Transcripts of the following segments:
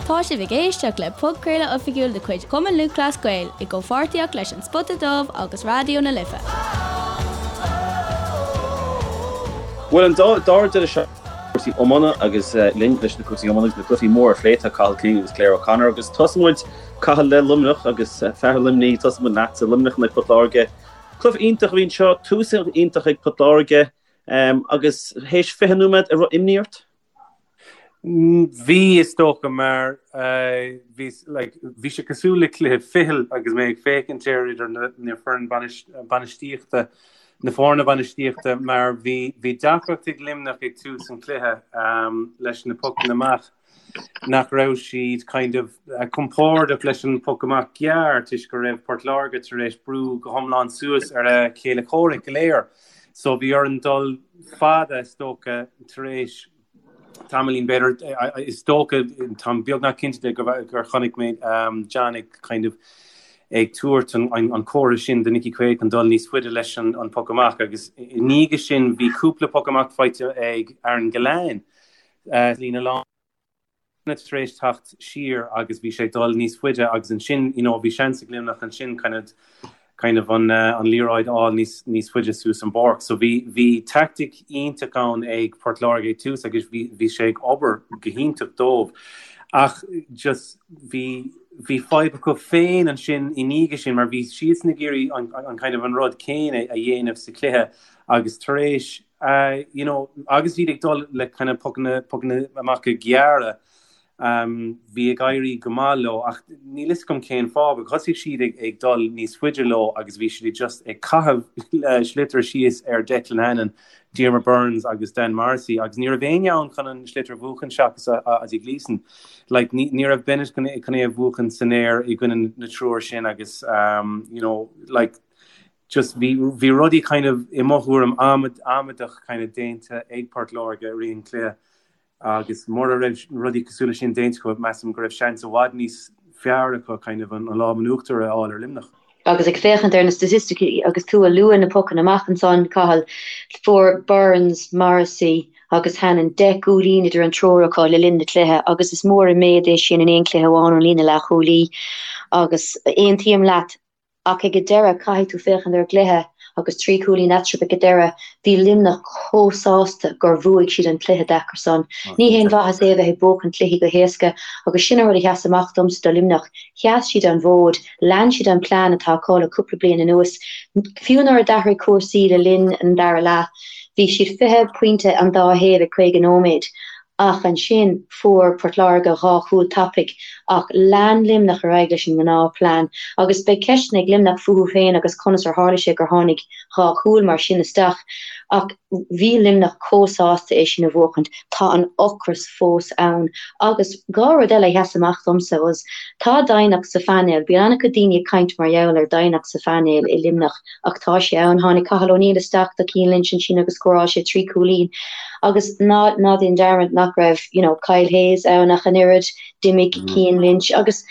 Tá sibh ag éisteacht le podchraoladh oifigiúil de chuid Chumann Lúthchleas Gael i gcomhpháirtíocht leis An Spota Dubh agus Raidió na Life. Bhuel, an dara deireadh seachtaine cúrsaí iomána agus linn leis na cúrsaí iomána agus na cluichí móra a phlé tá Cathal Keane agus Claire O'Connor agus tosóidh muid Cathal le Luimneach agus fear Luimnigh tosóidh muid leatsa Luimneach in aghaidh Port Láirge. Cluiche iontach a bhí anseo, tús iontach ag Port Láirge agus théis 20 nóiméad an raibh imní ort? Bhí, is dócha, mar bhí, like, bhí sé cosúil le cluiche fichill agus mé ag féachaint air idir na foireann bainistíochta, na foirne bainistíochta, mar bhí, bhí deacracht ag Luimneach ag tús an chluiche leis na pocanna amach, nach raibh siad kind of compordach leis an poc amach gearr toisc go raibh Port Láirge tar éis brú go hiomlán suas ar a chéile comhraic go léir. So bhí orainn dul fada is dócha tar éis tamaillín b'fhéidir is dócha táim beagnach cinnte de gur chonaic mé John ag kind of ag tabhairt an comhartha sin do Nicky Quaid chun dul níos faide leis an poc amach agus i ndiaidh sin bhí cúpla poc amach faighte ag Aaron Gillane líne lán tar éis teacht siar agus bhí sé ag dul níos faide agus ansin you know bhí seans ag Luimneach ansin kind of kind of an an liathróid a fháil níos níos faide suas an bpáirc. So bhí bhí tactic iontach ann ag Port Láirge ag tús agus bhí bhí sé ag obair go hiontach dóibh. Ach just bhí bhí fadhb acu féin ansin i ndiaidh sin mar bhí siadsan ag iarraidh an an kind of an rud céanna a dhéanamh sa chluiche agus tar éis you know, agus iad ag dul le kind of pocanna, pocanna amach gearra, um, bhí ag éirí go maith leo ach níl fhios agam cén fáth, but thosaigh siad ag, ag dul níos faide leo agus bhí siad just ag caitheamh sliotar síos ar Declan Hannon, Diarmaid Byrnes agus Dan Morrissey agus ní raibh éinne ann chun an sliotar a bhuachan seachas Ozzy Gleeson. Like, ní, ní raibh Bennett chun, chun é a bhuachan san aer i gcoinne na triúr sin agus, um, you know, like, just bhí bhí rudaí kind of i mo thuairim amaideach kind of déanta ag Port Láirge i rith an chluiche agus mura raibh rudaí cosúil leis sin déanta acu measaim go raibh seans i bhfad níos fearr acu kind of an lámh in uachtar a fháil ar Luimneach. Agus ag féachaint ar na staitisticí agus tú a lua na pocanna amach ansan, Cathal, fuair Byrnes, Morrissey agus Hannon 10 gcúilín idir an triúr acu le linn na cluiche agus is mór an méid é sin in aon chluiche amháin ón líne leathchúlaí agus aontaím leat Ach ag an deireadh, caithfidh tú féachaint ar an gcluiche agus 3 chúilín eatarthu ag an deireadh. Bhí Luimneach chomh sásta gur bhuaigh siad an cluiche deacair san. Ní haon mhaitheas é a bheith ag buachan cluichí go héasca agus sin an rud a sheas amach domsa do Luimneach. Sheas siad an bhfód, lean siad an plean atá acu le cúpla bliain anuas. Fiú nuair a d'athraigh cúrsaí le linn an dara leath, bhí siad 20 pointe an dá thaobh ag 50 nóiméad. Ach ansin fuair Port Láirge 2 chúl tapaidh ach lean Luimneach ar aghaidh leis an ngnáth plean agus beidh ceisteanna ag Luimneach fúthu féin agus conas ar tharla sé gur tháinig 2 chúl mar sin isteach ach bhí Luimneach chomh sásta é sin a bhuachaint. Tá an ocras fós ann agus 2 rud eile a sheas amach domsa was tá doimhneacht sa phainéal, bíonn an-chuid daoine ag caint mar gheall ar doimhneacht sa phainéal i Luimneach ach tá sé ann. Tháinig Cathal O'Neill isteach do Cian Lynch ansin agus scóráil sé 3 chúilín agus ná ná déan dearmad nach raibh you know Kyle Hayes ann ach an oiread, d'imigh Cian Lynch agus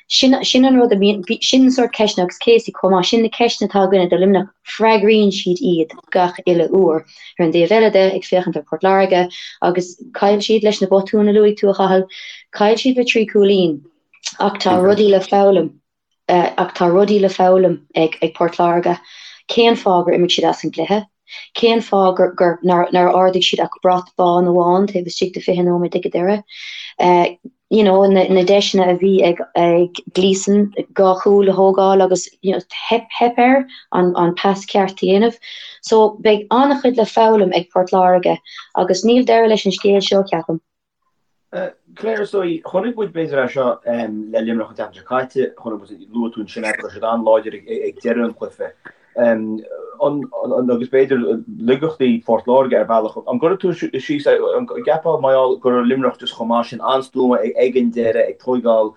sin sin an rud a bhíonn sin an sórt ceisteanna agus Casey chomh maith, sin na ceisteanna atá againne do Luimneach, freagraíonn siad iad gach uile uair. Ar an dtaobh eile de, ag féachaint ar Port Láirge agus chaill siad leis na botúin a luaigh tú a Chathail, chaill siad le 3 chúilín ach tá rudaí le foghlaim. Ach tá rudaí le foghlaim ag Port Láirge. Cén fáth gur imigh siad as an gcluiche? Cén fáth gur nár ardaigh siad ach brat bán amháin taobh istigh de 20 nóiméad ag an deireadh? You know, na deiseanna a bhí ag Gleeson 2 chúl a thógáil agus you know, theip, theip air an pas ceart a dhéanamh. So beidh an-chuid le foghlaim ag Port Láirge agus níl deireadh leis an scéal seo, ceapaim. Claire, is dóigh, chonaic muid b'fhéidir é seo le Luimneach an tseachtain seo caite, chonaic muid, luaigh tú ansin é, go raibh siad an-láidir ag deireadh an chluiche. Agus b'fhéidir laigeachtaí Phort Láirge ar bhealach. An gcuirfidh tú síos, an gceapfá mar gheall go raibh Luimneach just chomh maith sin, an-stuama ag an deireadh, ag tóigeáil,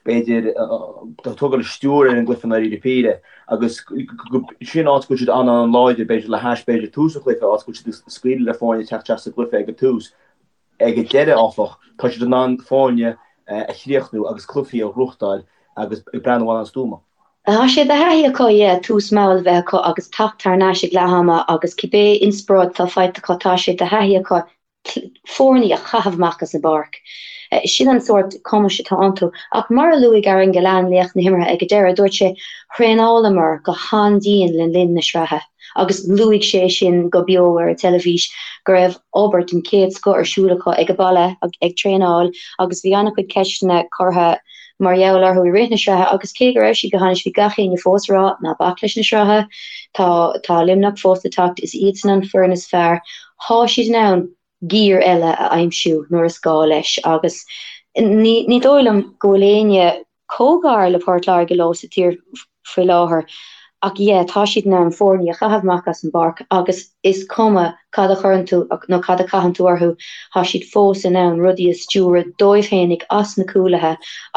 b'fhéidir, ag tógáil stiúir ar an gcluiche i ndáiríre píre agus sin áit go bhfuil siad an-an-láidir, b'fhéidir le hais, b'fhéidir tús an chluiche, áit go bhfuil siad ag scaoileadh le foirne teacht isteach sa gcluiche ag an tús. Ag an deireadh, áfach, tá siad in ann foirne a chríochnú agus cluichí a ghnóthachtáil agus ag breathnú an-stuama. Tá sé de thaithí acu, yeah, tús mall a bheith acu agus teacht thar n-ais ag leath ama agus cibé inspioráid atá faighte acu, tá sé de thaithí acu foirne a chaitheamh amach as an bpáirc. Sin an sórt cumais atá iontu. Ach mar a luaigh Aaron Gillane, laoch na himeartha ag an deireadh, dúirt sé, Thraenálamar go han-dian le linn na sraithe agus luaigh sé sin go beo ar an teilifís go raibh obair den chéad scoth ar siúl acu ag an baile ag traenáil agus bhí an-chuid ceisteanna curtha mar gheall orthu i rith na sraithe agus cé go raibh siad go hainnis bhí gach éinne fós ag rá ná bac leis na sraithe, tá tá Luimneach fós le teacht, is iadsan an foireann is fearr, thá siad in ann giar eile a aimsiú nuair is gá leis agus ní ní dóigh liom go bhfuil éinne chomh gar le Port Láirge leo sa tír faoi láthair ach yeah tá siad in ann foirne a chaitheamh amach as an bpáirc agus is cuma cad a chuireann tú nó cad a chaitheann tú orthu tá siad fós in ann rudaí a stiúradh dóibh fhéinig as na cúlaithe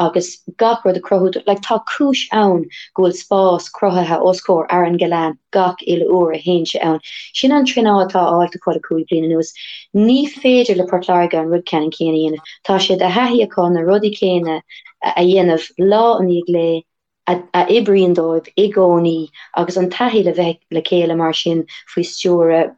agus gach rud a chruthú like tá cúis ann go bhfuil spás cruthaithe os comhair Aaron Gillane gach uile uair a théann sé ann. Sin an traenáil atá faighte acu le 5 bliana anuas. Ní féidir le Port Láirge an rud ceannann céanna a dhéanamh. Tá sé de thaithí acu na rudaí céanna a dhéanamh lá i ndiaidh lae a oibríonn dóibh i gcónaí agus an taithí le bheith le chéile mar sin faoi stiúradh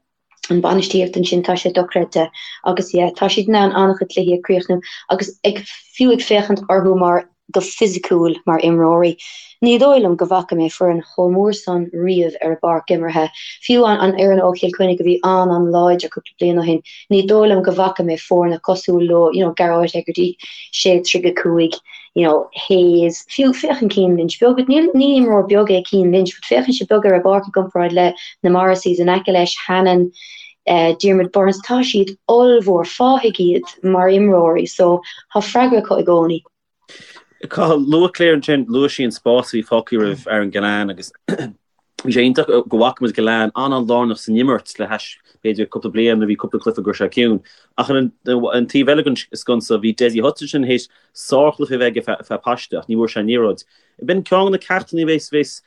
an bainistíocht ansin, tá sé dochreidte agus yeah tá siad in ann an-chuid cluichí a chríochnú agus ag fiú ag féachaint orthu mar go fisiciúil mar imreoirí. Ní dóigh liom go bhfaca mé foireann chomh mór san riamh ar an bpáirc imeartha, fiú an an fhoireann ó Chill Chainnigh a bhí an-an-láidir cúpla bliain ó shin, ní dóigh liom go bhfaca mé foirne cosúil leo, you know Gearóid Hegarty, 6-35, you know Hayes, fiú féachann Cian Lynch beag, níl ní imreoir beag é Cian Lynch but féachann sé beag ar an bpáirc i gcomparáid le na Morrisseys in aice leis, Hannon, Diarmaid Byrnes, tá siad ollmhór, fathaigh iad mar imreoirí so tá freagra acu i gcónaí. Cathal, luaigh Claire ansin, luaigh sí an spás a bhí fágtha roimh Aaron Gillane agus bhí sé iontach go bhfaca muid Gillane an-an-lárnach san imirt le hais b'fhéidir cúpla bliain nuair a bhí cúpla cluiche go raibh sé ciúin. Ach ar an taobh eile den sconsa bhí Dessie Hutchinson théis sárchluiche a bheith aige feadh paiste ach ní bhfuair sé an liathróid. B'in ceann de na ceachtanna a bheas bheas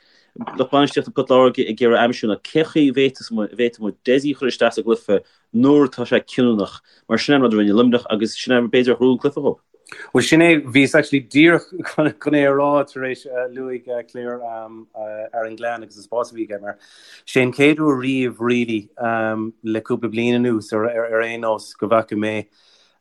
lucht bainistíochta Port Láirge ag iarraidh aimsiú ná cén chaoi a bhféadfadh muid Dessie a chur isteach sa gcluiche nuair atá sé cinniúnach, mar sin é an rud a rinne Luimneach agus sin é b'fhéidir a ghnóthaigh an cluiche dhóibh. Bhuel sin é, bhíos actually díreach chun é a rá tar éis luaigh Claire Aaron Gillane agus an spás a bhí aige mar sé an chéad uair riamh really le cúpla bliain anuas ar aon nós go bhfaca mé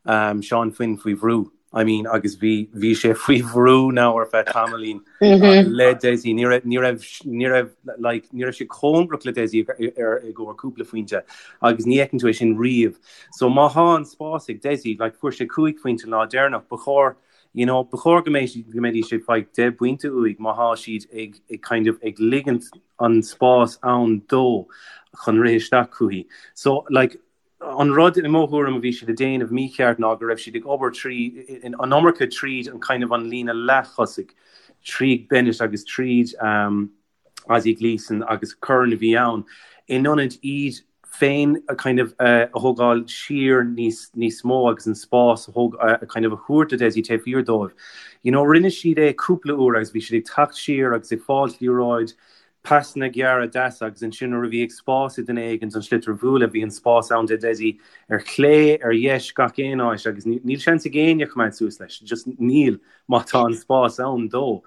Seán Finn faoi bhrú. I mean agus bhí bhí sé faoi bhrú now ar feadh tamaillín le Dessie. Ní raibh ní raibh ní raibh like ní raibh sé cóngarach le Dessie ar i gcomhair cúpla phointe agus ní fheiceann tú é sin riamh. So má thá an spás ag Dessie like fuair sé 5 phointe an lá deireanach ba chóir you know ba chóir go mbeidh go mbeidís ag fáil 10 bpointe uaidh má thá siad ag ag kind of ag ligint an spás ann dó chun rith isteach chuici. So like An rud, i mo thuairim, a bhí siad ag déanamh mícheart ná go raibh siad ag obair trí, an iomarca tríd an kind of an líne leath-thosaigh, tríd Bennett agus tríd Ozzie Gleeson agus Curran a bhí ann, in ionad iad féin a kind of a thógáil siar níos níos mó agus an spás a thóg a kind of a thabhairt do Dessie taobh thiar dóibh. You know, rinne siad é cúpla uair agus bhí siad ag teacht siar agus ag fáilt liathróid Pasanna gearra deasa agus ansin nuair a bhí ag spás ag duine éigin an sliotar a bhualadh bhí an spás ann do Dessie ar chlé, ar dheis, gach aon áit agus níl seans ag éinne coimeád suas leis, just níl má tá an spás ann dó.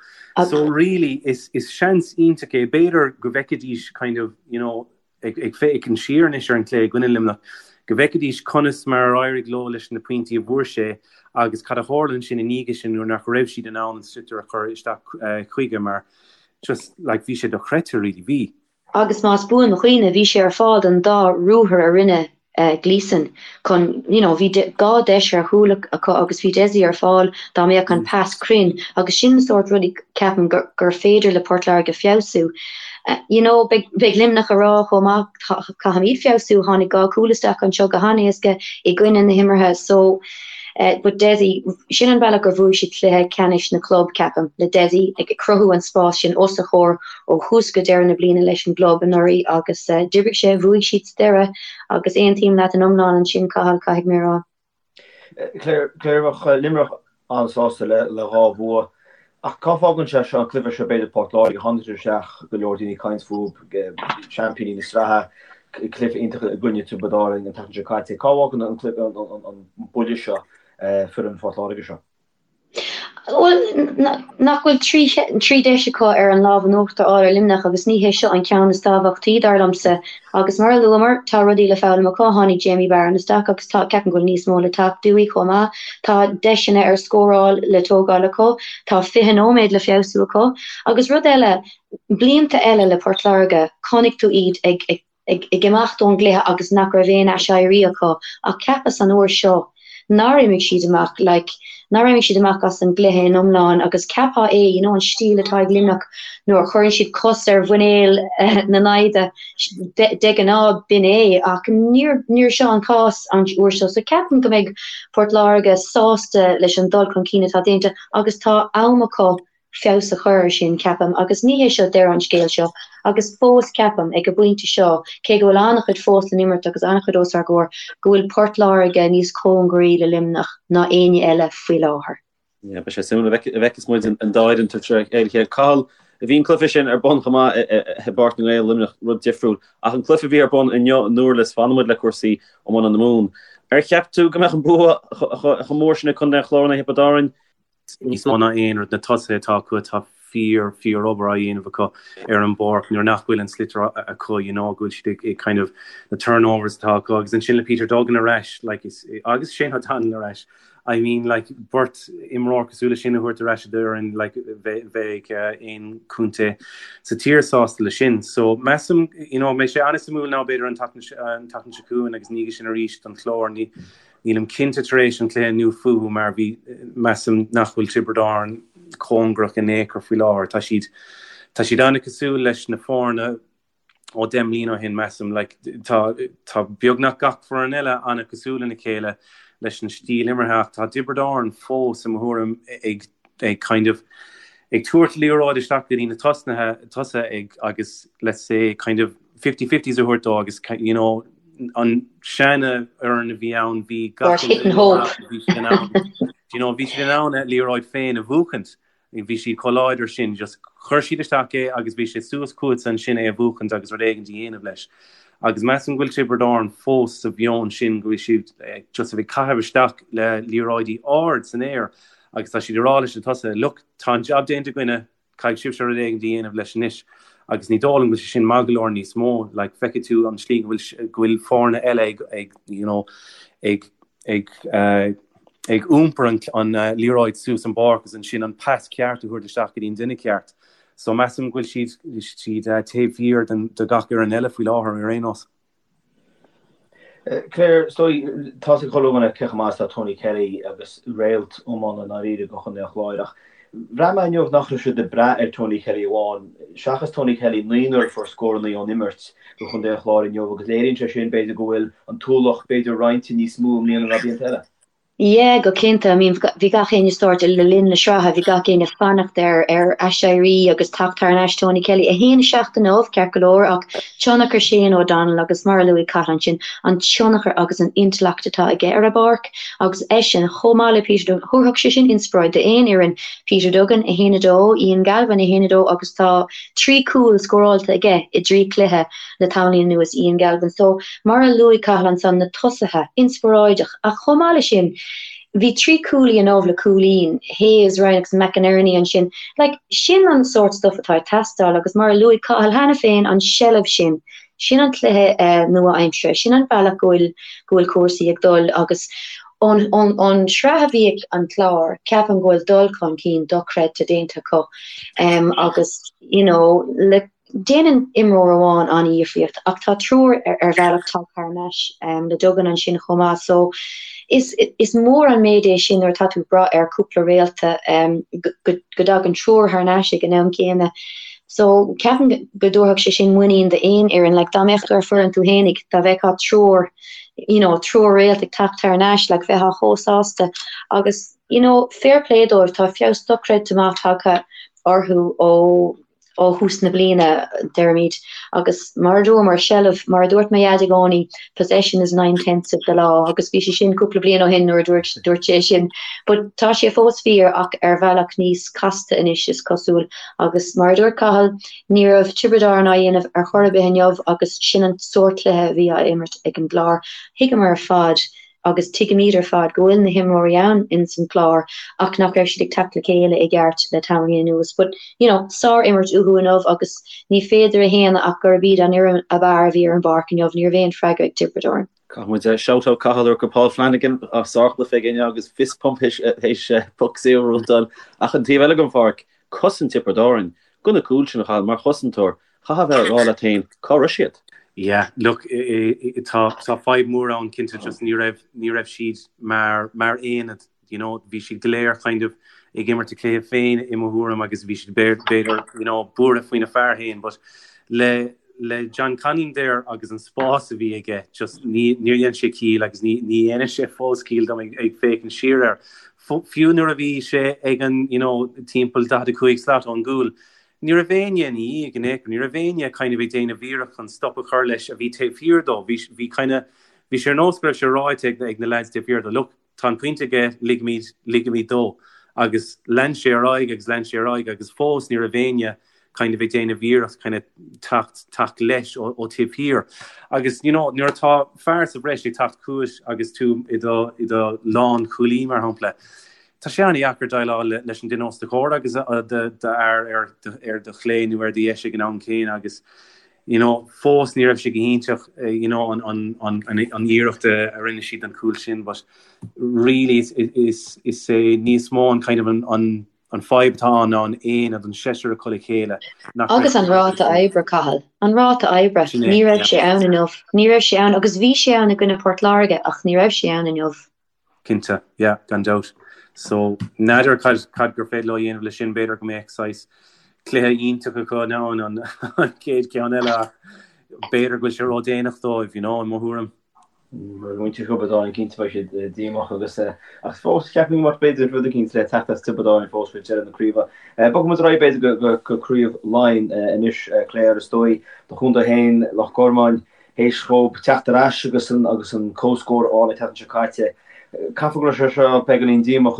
So really is is seans iontach é, b'fhéidir go bhfeicfidís kind of you know ag ag féachaint siar anois ar an cluiche i gcoinne Luimneach, go bhfeicfidís conas mar ar éirigh leo leis na pointí a bhfuair sé agus cad a tharla ansin i ndiaidh sin nuair nach raibh siad in ann an sliotar a chur isteach chuige mar Just, like, bhí sé dochreidte, really, bhí. Agus más buan mo chuimhne, bhí sé ar fáil don dá ruathar a rinne Gleeson chun, you know, bhí dhá deis ar chúl acu agus bhí Dessie ar fáil dá mbeadh an pas cruinn agus sin na sórt rudaí ceapaim gur gur féidir le Port Láirge feabhsú. You know, beidh beidh Luimneach a rá chomh maith caithfimid feabhsú, tháinig dhá chúl isteach anseo go han-éasca i gcoinne na himeartha so But Dessie, sin an bealach gur bhuaigh siad cluiche ceannais na club, ceapaim, le Dessie ag cruthú an spás sin os a chomhair ó thús go deireadh na bliana leis an gclub anuraidh agus d'oibrigh sé, bhuaigh siad sa deireadh agus aontaím leat in iomlán ansin, Cathal, caithfidh mé a rá. Claire, bheadh Luimneach an-sásta le dhá bhua ach cá fágann sé seo an cluiche seo b'fhéidir Port Láirge, tháinig siad isteach, go leor daoine ag caint fúthu, seaimpíní na sraithe, cluiche iontach i gcoinne Tiobraid Árann an tseachtain seo caite. Cá bhfágann an buille seo foireann Phort Láirge seo? Bhuel, nach bhfuil 3 deis acu ar an lámh in uachtar a fháil ar Luimneach agus ní hé seo an ceann is tábhachtaí, dar liomsa. Agus mar a luamar, tá rudaí le foghlaim acu, tháinig Jamie Barron isteach agus tá, ceapaim go bhfuil níos mó le teacht uaidh chomh maith. Tá deiseanna ar scóráil le tógáil acu, tá 20 nóiméad le feabhsú acu. Agus rud eile, blianta eile le Port Láirge, chonaic tú iad ag ag imeacht ón gcluiche agus nach raibh aon aiséirí acu ach cheapas an uair seo nár imigh siad amach like nár imigh siad amach as an gcluiche in iomlán agus cheapfá é you know an stíl atá ag Luimneach nuair a chuireann siad cos ar mhuinéal na naimhde de ghnáth b'in é ach níor níor seo an cás an uair seo so ceapaim go mbeidh Port Láirge sásta leis an dul chun cinn atá déanta agus tá am acu feabhas a chur air sin, ceapaim, agus ní hé seo deireadh an scéil seo, agus fós ceapaim, ag an bpointe seo, cé go bhfuil an-chuid fós le n-imirt agus an-chuid os ár gcomhair, go bhfuil Port Láirge níos cóngaraí le Luimneach ná éinne eile faoi láthair. Yeah, beidh sé suimiúil an bhfeicfeas muid an dá fhoireann tar éis a chéile. Cathal, bhí an cluiche sin ar bun chomh maith i bPáirc na nGael, Luimneach, rud difriúil. Ach an cluiche a bhí ar bun inniu i nDurlas, fanfaidh muid le cúrsaí iomána na Mumhan. Ar cheap tú go mbeadh an bua chomh mór sin ag Contae an Chláir in aghaidh Thiobraid Árann? níos mó ná aon rud, na tosaithe atá acu, tá fíor, fíor obair á dhéanamh acu ar an bpáirc nuair nach bhfuil an sliotar acu, you know, go bhfuil siad ag, ag kind of na turnovers atá acu agus ansin le Peter Duggan ar ais, like, is, agus Shane O'Donnell ar ais, I mean, like, beirt imreoir cosúil leis sin a thabhairt ar ais i d'fhoireann, like, bheadh, bheadh aon chontae sa tír sásta leis sin. So, measaim, you know, beidh sé an-suimiúil now b'fhéidir an tseachtain, an tseachtain seo chugainn agus ina dhiaidh sin arís don Chlár, ní, Nílim cinnte tar éis an chluiche inniu fúthu mar bhí, measaim nach bhfuil Tiobraid Árann cóngarach in aon chor faoi láthair. Tá siad, tá siad an-cosúil leis na foirne ó 10 mbliana ó shin, measaim. Like, tá, tá beagnach gach foireann eile an-cosúil lena chéile leis an stíl imeartha ach tá Tiobraid Árann fós, i mo thuairim, ag, ag kind of, ag tabhairt liathróid isteach go dtí na tosnaithe, tosaithe ag, agus let's say kind of, fifty-fifties a thabhairt dó agus you know an seana fhoireann a bhí ann bhí gach hit and hope bhí siad in ann you know bhí siad in ann a liathróid féin a bhuachaint bhí siad chomh láidir sin just chuir siad isteach é agus bhí sé suas chugatsa ansin é a bhuachaint agus rud éigin a dhéanamh leis agus measaim go bhfuil Tiobraid Árann fós sa mheon sin go bhfuil siad eh, just a bheith ag caitheamh isteach le liathróidí ard san aer agus tá siad ag rá leis na tosaithe look tá an job déanta againne Caithfidh sibhse rud éigin a dhéanamh leis anois agus ní dóigh liom go bhfuil sé sin maith go leor níos mó. Like, feicfidh tú an slí go bhfuil go bhfuil foirne eile ag ag you know ag ag uh, ag iompar an, an uh, liathróid suas an bpáirc agus ansin an pas ceart a thabhairt isteach go dtí an duine ceart. So measaim go bhfuil siad siad uh, taobh thiar den de gach fhoireann eile faoi láthair ar aon nós. Claire, so tá's ag chuile dhuine cé chomh maith is atá Tony Kelly agus réalt iomána i ndáiríre do Chontae an Chláir ach bhraith mé inniu nach raibh siad ag brath ar Tony Kelly amháin. Seachas Tony Kelly, naonúr a fuair scóranna ón imirt do Chontae an Chláir inniu agus léiríonn sé sin b'fhéidir go bhfuil an t-ualach b'fhéidir roinnte níos mó i mbliana ná blianta eile. Yeah, go cinnte. I mean, bhí gach éinne sórt le linn na sraithe, bhí gach éinne ag fanacht ar ar aiséirí agus teacht thar n-ais Tony Kelly. 1-7 inniu, ceart go leor, ach tionchar Shane O'Donnell agus mar a luaigh Cathal ansin, an tionchar agus an intleacht atá aige ar an bpáirc agus eisean, chomh maith le Peter Duggan, thabharfadh sé sin inspioráid d'aon fhoireann. Peter Duggan, 1-2, Ian Galvin, 1-2 agus tá 3 cúl scóráilte aige i dtrí chluiche. le tamaillín anuas, Ian Galvin. So, mar a luaigh Cathal ansan, na tosaithe, inspioráideach. Ach chomh maith leis sin, bhí 3 cúilí inniu le cúilín, Hayes, Ryan agus McInerney ansin. Like, sin an sórt stuff atá ag teastáil agus mar a luaigh Cathal cheana féin, an seilbh sin, sin an cluiche nua-aimseartha, sin an bealach go bhfuil, go bhfuil cúrsaí ag dul agus ón, ón, ón sraith a bhí ag an Clár, ceapaim go bhfuil dul chun cinn dochreidte déanta acu agus, you know, le. Déanann imreoir amháin an-dhifríocht ach tá triúr ar bhealach tagtha thar n-ais le Duggan ansin chomh maith so is is mór an méid é sin nuair atá tú ag brath ar cúpla réalta go dtagann triúr thar n-ais ag an am céanna. So ceapaim go dtabharfadh sé sin muinín d'aon fhoireann like dá mbeadh tú ar foireann tú fhéinig dá bhfeicfeá triúr you know triúr réalt ag teacht thar n-ais like bheifeá chomh sásta agus you know fair play dóibh tá feabhas dochreidte maith tagtha orthu ó ó thús na bliana, deirimid, agus mar a dúramar, seilbh, mar a dúirt mo dhaid i gcónaí, possession is nine tenths of the law, agus bhí sé sin cúpla bliain ó shin nuair a dúirt, dúirt sé sin. But tá sé fós fíor ach ar bhealach níos casta anois, is cosúil. Agus mar a dúirt Cathal, ní raibh Tiobraid Árann á dhéanamh ar chor ar bith inniu agus sin an sórt cluiche a bhí á imirt ag an gClár. Thuigeamar ar fad. agus tuigimid ar fad go bhfuil na himreoirí ann ins an Clár ach nach raibh siad ag teacht le chéile i gceart le tamaillín anuas. But, you know, sár-imirt uathu inniu agus ní féidir a shéanadh ach gurb iad an fhoireann ab fhearr a bhí ar an bpáirc inniu, ní raibh aon freagra ag Tiobraid Árann. Caithfidh muid shout out Cathal go Paul Flanagan as sárchluiche aige inniu agus fist pump théis poc saor a rúntáil ach an taobh eile den pháirc, cosaint Tiobraid Árann, go na cúil sin a Chathail mar chosantóir, chaithfeá a bheith ag rá leat féin cá raibh siad? Yeah, look, tá fadhb mór ann cinnte just ní raibh, ní raibh siad mar, mar aonad, you know, bhí siad go léir kind of ag imirt a cluiche féin i mo thuairim agus bhí siad b'fhéidir, you know, buartha faoina fear féin but le, le John Conlon there agus an spás a bhí aige just ní, níor dhein sé ciall agus ní, ní dhéanann sé fós ciall dom ag, ag féachaint siar air. Fiú nuair a bhí sé ag an, you know, timpeall 45 slat ón gcúl, Ní raibh éinne ina dhiaidh in aon chor, ní raibh éinne kind of ag déanamh iarracht chun stop a chur leis a bhí taobh thiar dó. Bhí, bhí kind of, bhí sé ar nós go raibh sé ráite ag, ag na lads taobh thiar dó, look, tá an pointe aige, ligimid, ligimid dó. Agus lean sé ar aghaidh agus lean sé ar aghaidh agus fós ní raibh éinne kind of ag déanamh iarracht kind of teacht, teacht leis ó, ó taobh thiar. Agus, you know, nuair atá fear sa bhreis ag teacht chugat agus tú i do, i do lánchúlaí, mar shampla, Tá sé an-dheacair déileáil leis an duine os do chomhair agus d'fhear ar do chlé nó ar do dheis ag an am céanna agus you know fós ní raibh sé go hiontach you know an an an an iarracht a rinne siad an cúl sin but really is is is é níos mó an kind of an an an fadhb atá ann ná an aonad an seisear acu le chéile nach Agus an ráta oibre, Cathal. An ráta oibre. Ní raibh sé ann inniu. Ní raibh sé ann agus bhí sé ann i gcoinne Port Láirge ach ní raibh sé ann inniu. Cinnte, yeah, gan dabht. So, n'fheadar cad, cad gur féidir leo a dhéanamh leis sin, b'fhéidir go mbeadh saghas cluiche iontach acu ann an, an chéad cheann eile ach b'fhéidir go bhfuil sé ródhéanach dóibh, you know, i mo thuairim. Muintir Thiobraid Árann cinnte beidh siad díomách agus ach fós ceapaim go mbeadh b'fhéidir rud eicínt le teacht as Tiobraid Árann fós roimh deireadh na craoibhe. Bogfaidh muid ar aghaidh b'fhéidir go, go, go Craobh Laighean anois Claire is dóigh do chontae féin Loch Garman. Théis dhóibh teacht ar ais agus an agus an comhscór a fháil an tseachtain seo caite, caithfidh go raibh sé seo beagáinín díomách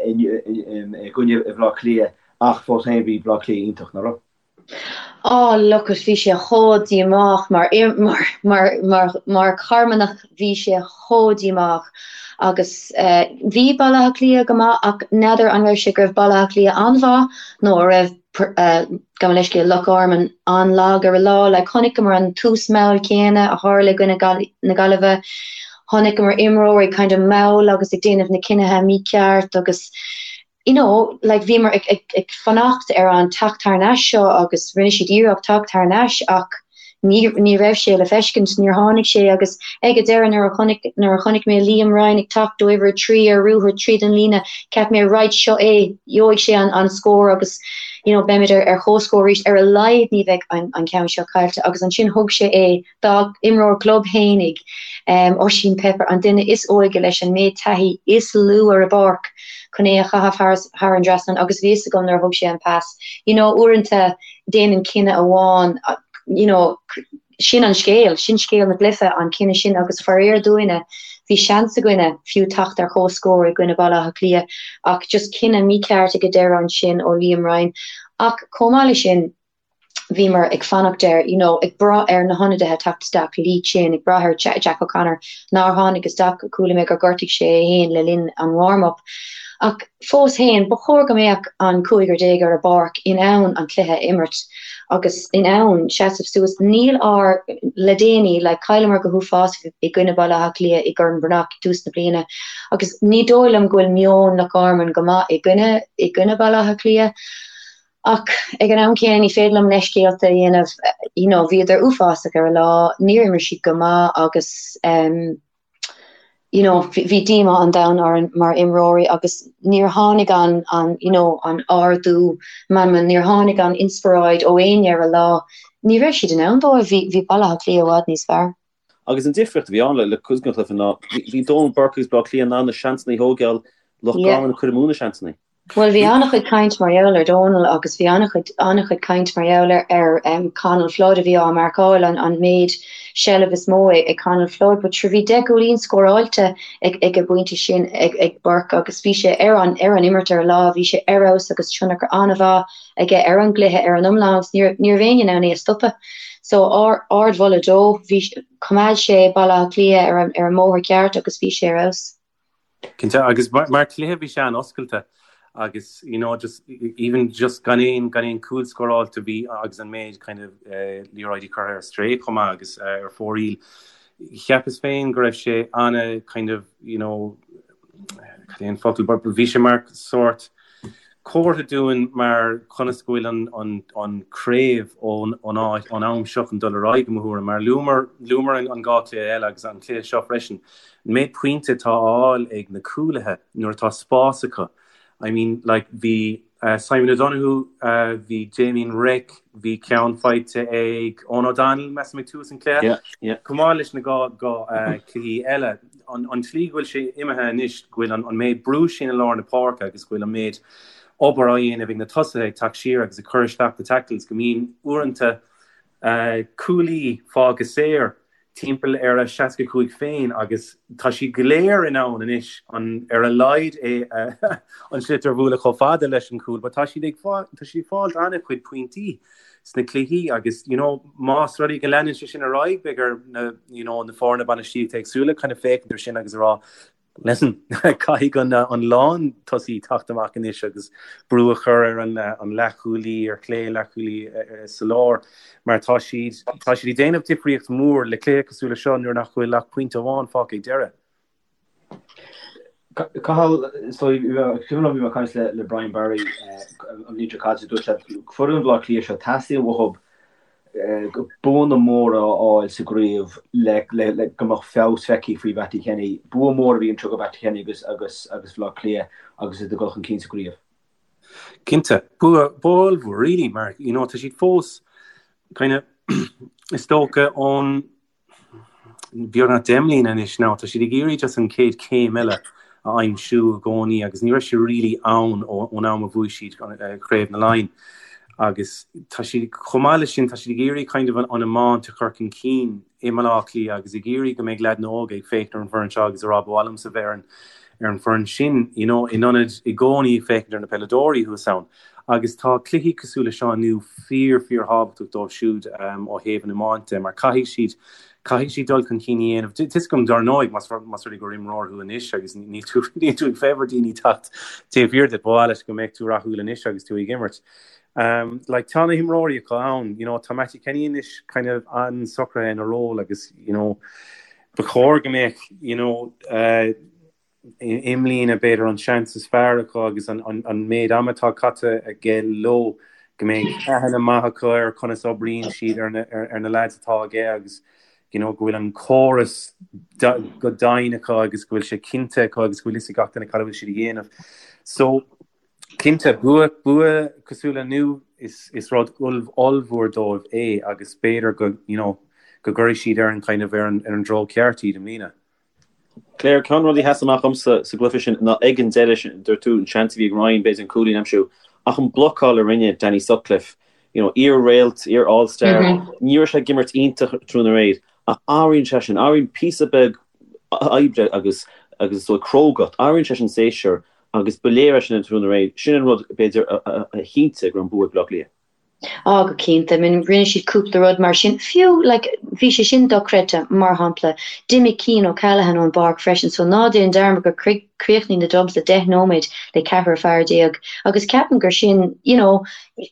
i gcoinne Bhaile Átha Cliath ach fós féin bhí Baile Átha Cliath iontach, nach raibh? Oh look it, bhí sé chomh díomách mar mar mar mar mar Charmanach bhí sé chomh díomách agus bhí Baile Átha Cliath go maith ach n'fheadar an raibh sé go raibh Baile Átha Cliath an-mhaith nó a raibh gabh mo leithscéal, Loch Garman an-lag ar an lá. Like, chonaiceamar an tús mall céanna a tharla i gcoinne na Gaillimhe. Chonaiceamar imreoirí kind of mall agus ag déanamh na cinnithe mícheart agus you know, like bhíomar ag, ag, ag fanacht ar an teacht thar n-ais seo agus rinne siad iarracht teacht thar n-ais ach Ní ní raibh sé le feiscint, níor tháinig sé agus ag an deireadh nuair a chonaic nuair a chonaic mé Liam Ryan ag teacht ó uimhir 3 ar ruathar tríd an líne, cheap mé right seo é, gheobhaidh sé an an scór agus you know beimid ar ar chomhscór arís, ar a laghad ní bheidh an an ceann seo caillte agus ansin thug sé é dá imreoir club fhéinig, um Oisín Pepper, an duine is óige leis an méid taithí is lú ar an bpáirc chun é a chaitheamh thar thar an dtrasnán agus bhí fhios agam nuair a thug sé an pas, you know uaireanta déanann cinneadh amháin, you know, sin an scéal, sin scéal na gcluiche, an cinneadh sin agus faraor dúinne, bhí seans againne fiú teacht ar chomhscór i gcoinne Baile Átha Cliath ach just cinneadh mícheart ag an deireadh ansin ó Liam Ryan. Ach chomh maith leis sin, bhíomar ag fanacht ar, you know, ag brath ar na hionadaithe teacht isteach, Lee Chin, ag brath ar Jack O'Connor nár tháinig isteach, chuala mé gur ghortaigh sé é féin le linn an warm-up. Ach Fós féin, ba chóir go mbeadh an cúigear déag ar an bpáirc in ann an cluiche a imirt agus in ann seasamh suas. Níl ár, le déanaí, like, chailleamar go huafásach i gcoinne Baile Átha Cliath i gCorn Bhreathnach i dtús na bliana agus ní dóigh liom go bhfuil meon Loch Garman go maith i gcoinne, i gcoinne Baile Átha Cliath. Ach ag an am céanna ní féidir liom leithscéalta a dhéanamh, you know, bhíodar uafásach ar an lá, níor imir siad go maith agus ehm, you know, bhí díomá an domhain orainn mar imreoirí agus níor tháinig an, an, you know, an ardú meanman, níor tháinig an inspioráid ó éinne ar an lá. Ní raibh siad in ann dóibh, bhí, bhí Baile Átha Cliath i bhfad níos fearr. Agus an difríocht a bhí ann le, le cuid den chluiche ná bhí, bhí Donal Burke agus Baile Átha Cliath in ann na seansanna a thógáil, Loch Garman ag cur amú na seansanna. Bhuel, bhí an-chuid caint mar gheall ar Dónal agus bhí an-chuid, an-chuid caint mar gheall ar, ar Conal Flood a bhí á marcáil, an, an méid seilbh is mó ag Conal Flood. But sure, bhí 10 gcúilín scóráilte ag, ag an bpointe sin ag, ag Burke agus bhí sé ar an, ar an imirt ar an lá, bhí sé ar fheabhas agus tionchar an-mhaith aige ar an gcluiche ar an iomlán agus ní raibh, ní raibh éinne in ann é a stopadh. So, ard, ardmholadh dó. Bhí, choimeád sé Baile Átha Cliath ar an, ar an mbóthar ceart agus bhí sé ar fheabhas. Cinnte, agus mar chluiche bhí sé an-oscailte agus you know just even just gan aon gan aon cúl scóráilte bhí agus an méid kind of liathróidí curtha ar strae chomh maith agus ar fóraoil. Cheapas féin go raibh sé ana kind of you know cad é an focal but bhí sé mar sórt comhartha dúinn mar conas go bhfuil an an an craobh ón ón áit ón am seo chun dul ar aghaidh i mo thuairim mar luamar luamar an an dá chluiche eile agus an cluiche seo freisin an méid pointe atá á fháil ag na cúlaithe nuair atá spás acu I mean like bhí Simon O'Donoghue bhí Damien Reck bhí ceann faighte ag Eoghan O'Donnell measaim ag tús an chluiche Yeah, yeah. chomh maith leis na dá dá cluichí eile an an tslí go bhfuil sé imithe anois go bhfuil an an méid brú sin i lár na páirce agus go bhfuil an méid obair á dhéanamh ag na tosaithe ag teacht siar agus ag cur isteach na tackles go mbíonn uaireanta cúlaí fágtha saor timpeall ar a 65 féin agus tá siad go léir in ann anois an ar a laghad é an sliotar a bhualadh chomh fada leis an chúl but tá siad ag tá siad ag fáilt an-chuid pointí sna cluichí agus you know más rud é go leanann sé sin ar aghaidh beidh ar na you know na foirne bainistíochta éagsúla kind of féachaint ar sin agus a rá Listen, caithfidh an an lántosaí teacht amach anois agus brú a chur ar an an leathchúlaí ar chlé, leathchúlaí sa lár mar tá siad tá siad ag déanamh difríocht mhór le cluiche cosúil le seo nuair nach bhfuil ach pointe amháin fágtha ag deireadh. Cathal, so cuimhin liom bhí mé ag caint le Brian Barry an bhliain seo caite, dúirt sé foireann Bhaile Átha Cliath seo teastaíonn uathu buanna móra a fháil sa gcraobh le go mbeadh feabhas feicthe faoi Mhattie Kenny. Bua mór a bhí anseo do Mhattie Kenny agus agus agus Bhaile Átha Cliath agus iad ag dul chun cinn sa gcraobh. Cinnte, bua bua ollmhór really mar you know tá siad fós kind of is dócha ón beagnach 10 mbliana anois now, tá siad ag iarraidh just an chéad chéim eile a aimsiú i gcónaí agus ní raibh sé really ann ón am a bhuaigh siad Craobh na Laighean agus tá siad, chomh maith leis sin, tá siad ag iarraidh kind of an iomáint a chur chun cinn i mBaile Átha Cliath agus ag iarraidh go mbeidh leaideanna óga ag féachaint ar an bhfoireann seo agus ag rá ba mhaith liomsa bheith ar an ar an bhfoireann sin, you know, in ionad i gcónaí ag féachaint ar na peileadóirí thuas ann. Agus tá cluichí cosúil le seo inniu fíor, fíor thábhachtach dóibh siúd ó thaobh an iomáint de mar caithfidh siad, caithfidh siad dul chun cinn a dhéanamh. Tá 'fhios agam dar ndóigh más más rud é gur imreoir thú anois agus níl tú níl tú ag féamh ar daoine teacht taobh thiar díot, ba mhaith leat go mbeadh tú rathúil anois agus tú ag imirt. Like tá na himreoirí acu ann, you know, tá Mattie Kenny anois kind of an-socraithe ina ról agus, you know, ba chóir go mbeadh, you know, uh, i mbliana, b'fhéidir, an seans is fearr acu agus an méid ama atá caite aige leo, go mbeidh aithne maith acu ar conas oibríonn siad ar na leaids atá aige agus you know go bhfuil an córas go domhain acu agus go bhfuil sé cinnte acu agus go bhfuil fhios ag gach duine cad a bhfuil siad a dhéanamh. So, cinnte, bua, bua cosúil le inniu, is, is rud ollmhór dóibh é agus b'fhéidir go, you know, go gcuirfidh siad ar an kind of ar an, ar an dtreo ceart iad i mbliana. Claire, Ceann de na rudaí a sheas amach dhomsa sa gcluiche sin ná ag an deireadh sin, dúirt tú an seans a bhí ag Ryan b'fhéidir an cúilín a aimsiú, ach an blocáil a rinne Danny Sutcliffe, you know, iar-réalt, iar-All-Star, ní raibh sé ag imirt iontach tráthnóna aréir, ach athraíonn sé sin, athraíonn píosa beag oibre agus agus is dóigh crógacht, athraíonn sé sin séasúr agus ba léir é sin an tráthnóna aréir, sin an rud b'fhéidir a chinntigh go raibh an bua ag Baile Átha Cliath. Á, go cinnte. I mean, rinne siad cúpla rud mar sin. Fiú, like, bhí sé sin dochreidte, mar shampla, d'imigh Cian O'Callaghan ón bpáirc freisin, so ná déan dearmad gur chríochnaigh na Dubs le deich nóiméad le ceathrar fear déag. Agus ceapaim gur sin, you know,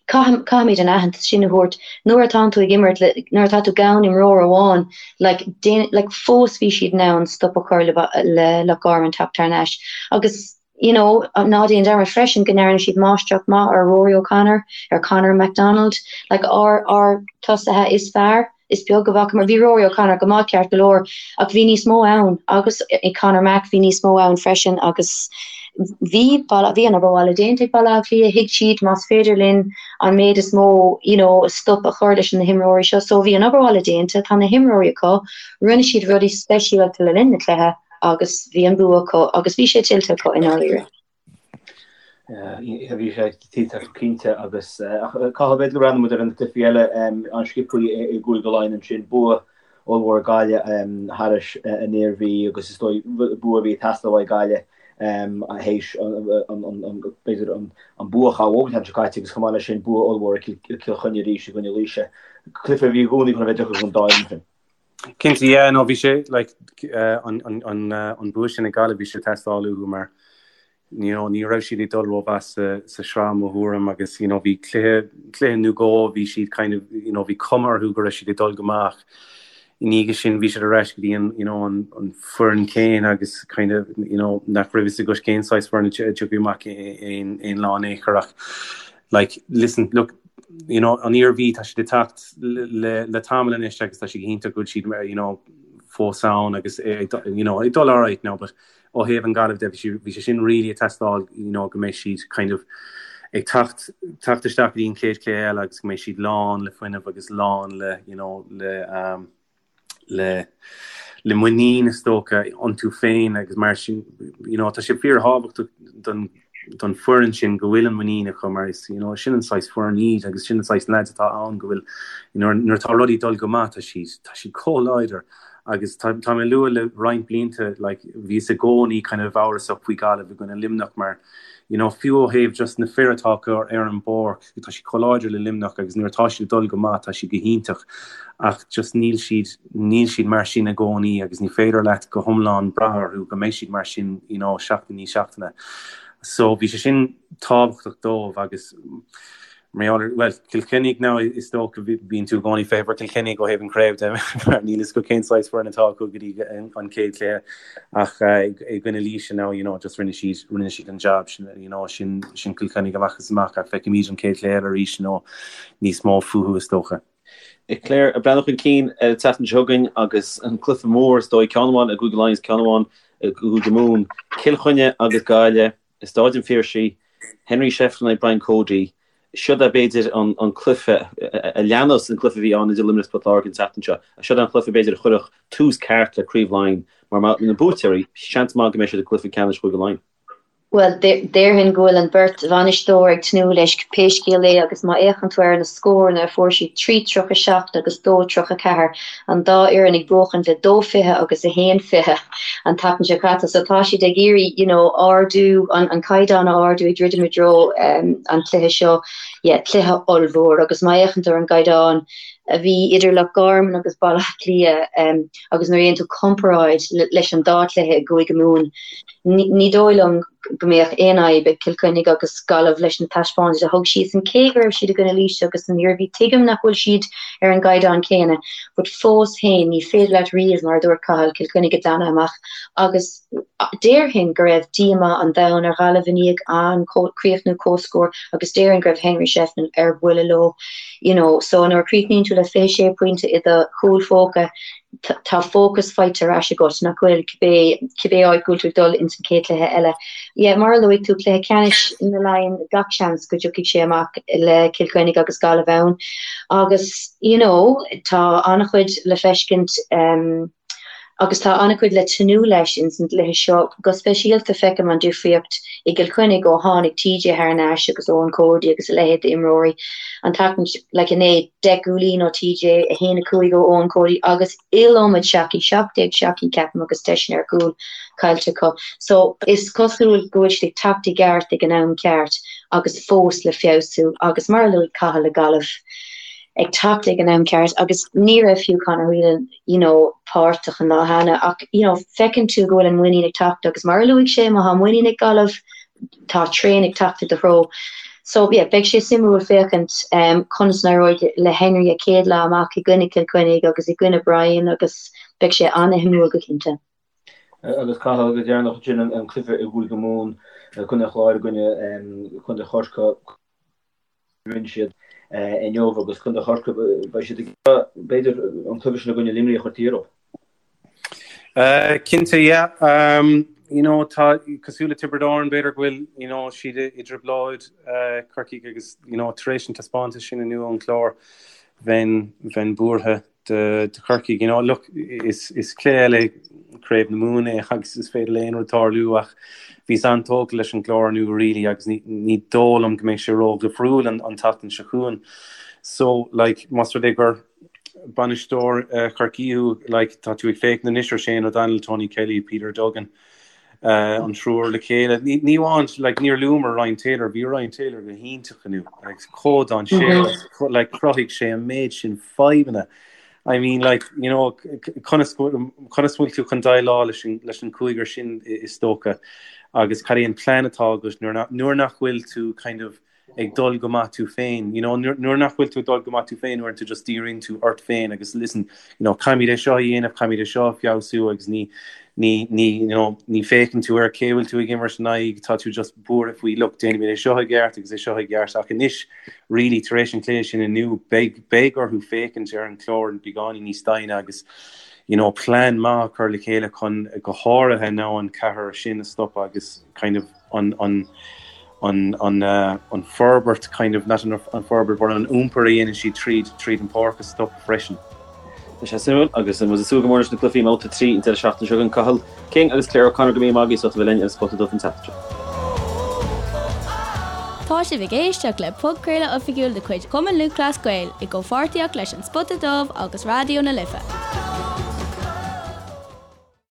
caithfimid an aitheantas sin a thabhairt. Nuair atánn tú ag imirt le, nuair atá tú gan imreoir amháin, like, déan, like, fós bhí siad in ann stop a chur le, le Loch Garman teacht thar n-ais. Agus. you know, ná déan dearmad freisin go ndearna siad máistreacht maith ar Rory O'Connor, ar Conor McDonald, like ár, ár tosaithe is fearr, is beag a bhfacamar, bhí Rory O'Connor go maith ceart go leor ach bhí níos mó ann agus i Conor Mac bhí níos mó ann freisin agus bhí, bhí an obair bhaile déanta ag Baile Átha Cliath, thuig siad más féidir linn an méid is mó, you know, stop a chur leis na himreoirí seo, so bhí an obair bhaile déanta, tá na himreoirí acu, rinne siad rudaí speisialta le linn na cluiche. agus bhí an bua acu agus bhí sé tuillte acu i ndáiríre. Bhí sé tuillteach cinnte agus Cathal b'fhéidir go mbreathnóidh muid ar na cluichí eile an-sciobtha i gCúige Laighean ansin, bua ollmhór ag Gaillimh thairis an Iarmhí agus is dóigh bua a bhí ag teastáil uaidh Gaillimh théis b'fhéidir an bua a chaill uathu an tseachtain seo caite agus chomh maith leis sin bua ollmhór ag Cill Chainnigh arís i gcoinne Laoise. Cluiche a bhí i gcónaí chun a bheith deacair don dá fhoireann sin. Cinnte, yeah, no bhí sé like an bua sin ag Gaillimh bhí sé ag teastáil uathu mar you know, ní raibh siad ag dul rómhaith sa, sa sraith mo thuairim agus you know, bhí cluiche, cluiche nó dhó bhí siad kind of, you know, bhí cuma orthu go raibh siad ag dul go maith ach i ndiaidh sin bhí siad ar ais go dtí an, you know, an, an foireann céanna agus kind of, you know, nach raibh fhios agat cén saghas foireann a tiocfaidh amach aon, aon lá in aon chor ach like, listen, look, you know, an Iarmhí tá siad ag teacht le, le tamall anois agus tá sé go hiontach go bhfuil siad, you know, fós ann agus you know, ag dul alright now, but ó thaobh an Gaillimh de, bhí sé sin really ag teastáil you know go mbeidh siad kind of ag teacht teacht isteach go dtí an chéad chluiche eile agus go mbeidh siad lán le fuinneamh agus lán le you know le um, le le muinín is dócha iontu féin agus mar sin you know tá sé fíorthábhachtach don don foireann sin go bhfuil an muinín acu mar is you know sin an saghas foireann iad agus sin an saghas lads atá ann go bhfuil you know nuair atá rudaí dul go maith tá siad tá siad chomh láidir Agus tá mé ag lua le roinnt blianta, like, bhíos i gcónaí kind of amhrasach faoi Gaillimh i gcoinne Luimneach mar, you know, fiú ó thaobh just na fir atá acu ar an bpáirc, tá siad chomh láidir le Luimneach agus nuair atá siad ag dul go maith tá siad go hiontach ach just níl siad, níl siad mar sin i gcónaí agus ní féidir leat go hiomlán brath orthu go mbeidh siad mar sin, you know, seachtain i ndiaidh seachtaine. So bhí sé sin tábhachtach dóibh agus, Mar gheall ar, bhuel, Cill Chainnigh now is dócha bíonn tú i gcónaí ag feitheamh ar Cill Chainnigh ó thaobh an chraobh de mar níl fhios agat cén saghas foireann atá acu go dtí an chéad chluiche ach i gcoinne Laoise now you know just rinne siad rinne siad an job sin you know sin sin Cill Chainnigh amach is amach ach feicfimid an chéad chluiche eile arís you know níos mó fúthu is dócha. Claire, ag breathnú chun cinn ar an tseachtain seo chugainn agus an cluiche mór is dóigh ceann amháin i gCúige Laighean is ceann amháin i gCúige Mumhan, Cill Chainnigh agus Gaillimh. I Stáid an Phiarsaigh, Henry Shefflin aghaidh Brian Cody, Siod é b'fhéidir an cluiche a leanas an cluiche a bhí ann idir Luimneach is Port Láirge an tseachtain seo. Siod é an cluiche b'fhéidir a chuirfeadh tús ceart le Craobh Laighean mar na buaiteoirí, seans maith go mbeidh siad i gcluiche ceannais Chúige Laighean. Bhuel, déarfainn go bhfuil an bheirt bhainisteoir ag tnúth leis pé scéal é agus má fhéachann tú ar na scóranna a fuair siad, 3-37 agus 2-34, an dá fhoireann ag buachaint le 2-20 agus 1-20 an tseachtain seo caite so tá siad ag iarraidh you know ardú an an caighdeán a ardú ag druidim i dtreo um, an cluiche seo yeah, cluiche ollmhór agus má fhéachann tú ar an gcaighdeán a bhí idir Loch Garman agus Baile Átha Cliath um, agus nuair a dhéanann tú comparáid leis an dá chluiche i gCúige Mumhan ní, ní dóigh liom go mbeadh aon fhadhb ag Cill Chainnigh agus Gaillimh leis na taispeántais a thug siadsan, cé go raibh siad i gcoinne Laoise agus an Iarmhí. Tuigim nach bhfuil siad ar an gcaighdeán céanna, but fós féin, ní féidir leat riamh, mar a dúirt Cathal, Cill Chainnigh a ghlanadh amach agus déarfainn go raibh díomá an domhain ar Ghaillimh i ndiaidh an críochnú comhscór agus déarfainn go raibh Henry Shefflin ar buile leo. You know, so nuair a chríochnaíonn tú le 26 pointe i do chúl phóca, tá fócas faighte ar ais agat, nach bhfuil, cibé, cibé áit go bhfuil tú ag dul ins an chéad chluiche eile. Yeah, mar a luaigh tú, cluiche ceannais na Laighean, gach seans go dtiocfaidh sé amach le Cill Chainnigh agus Gaillimh ann. Agus, you know, tá an-chuid le feiscint, um, agus tá an-chuid le tnúth leis ins an gcluiche seo. Go speisialta feicim an difríocht i gCill Chainnigh ó tháinig TJ thar n-ais agus Eoin Cody agus a leithéid d'imreoirí an tseachtain, like inné, 10 gcúilín ó TJ, 1, 5 ó Eoin Cody agus iliomad seachaí, 17 seachaí ceapaim agus deiseanna ar chúl caillte acu. So is cosúil go bhfuil siad ag teacht i gceart ag an am ceart agus fós le feabhsú agus mar a luaigh Cathal le Gaillimh ag teacht ag an am ceart agus ní raibh fiú Conor Whelan you know páirteach an lá cheana ach you know feiceann tú go bhfuil an muinín ag teacht agus mar a luaigh sé má tá muinín ag Gaillimh tá traein ag teacht i do threo. So yeah, beidh sé suimiúil féachaint um, conas a n-éireoidh le Henry a chéad lá amach i gcoinne Cill Chainnigh agus i gcoinne Brian agus beidh sé an-shuimiúil go cinnte. Agus Cathal go deireanach ansin an cluiche i gCúige Mumhan, Contae an Chláir i gcoinne Contae Chorcaí. Rinne siad inniu agus Contae Chorcaí, beidh siad ag b'fhéidir an cluiche sin i gcoinne Luimnigh a chur taobh thiar. Cinnte, yeah. You know, tá cosúil le Tiobraid Árann, b'fhéidir go bhfuil, you know, siad i dtrioblóid Corcaigh agus, you know, tar éis an taispeántas sin inniu ón Chlár, bheinn, bheinn buartha do, do Chorcaigh. You know, look, is, is cluiche eile. Craobh na Mumhan é agus is féidir le aon rud tarlú ach bhíos an-tógtha leis an gClár inniu really agus ní ní dóigh liom go mbeidh sé ró-dhifriúil an an tseachtain seo chugainn. So like más rud é gur bainisteoir Chorcaí thú like tá tú ag féachaint anois ar Shane O'Donnell, Tony Kelly, Peter Duggan, an triúr le chéile. Ní amháin, like, níor luamar Ryan Taylor, bhí Ryan Taylor go hiontach inniu, like, chomh dainséarach, like, chruthaigh sé an méid sin fadhbanna. I mean, like, you know, conas conas bhfuil tú chun déileáil leis an leis an cúigear sin is dócha agus cad é an plean atá agat nuair nuair nach bhfuil tú kind of ag dul go maith tú féin, you know, nuair nach bhfuil tú ag dul go maith tú féin, uaireanta just díríonn tú ort féin agus listen, you know, caithfimid é seo a dhéanamh, caithfimid é seo a feabhsú agus ní, ní, ní, you know, ní féachann tú ar cé bhfuil tú ag imirt in aghaidh, tá tú just buartha faoi, look, déanfaimid é seo i gceart agus é seo i gceart ach anois, really, tar éis an chluiche sin inniu, beidh, beidh orthu féachaint ar an chlár beagáinín níos doimhne agus, you know, plean maith a chur le chéile chun go háirithe now an ceathrar sin a stopadh agus kind of, an an an an an forbairt kind of not an an forbairt but an iompar a dhéanann siad tríd tríd an páirc a stopadh freisin. Tá sé suimiúil agus muid ag súil go mór leis na cluichí i mBabhta 3 an deireadh seachtaine seo chugainn. Cathal King agus Claire O'Connor go raibh míle maith agaibh as ucht a bheith linn ar an Spota Dubh an tseachtain seo. Tá sibh ag éisteacht le podchraoladh oifigiúil de chuid Chumann Lúthchleas Gael i gcomhpháirtíocht leis An Spota Dubh agus Raidió na Life.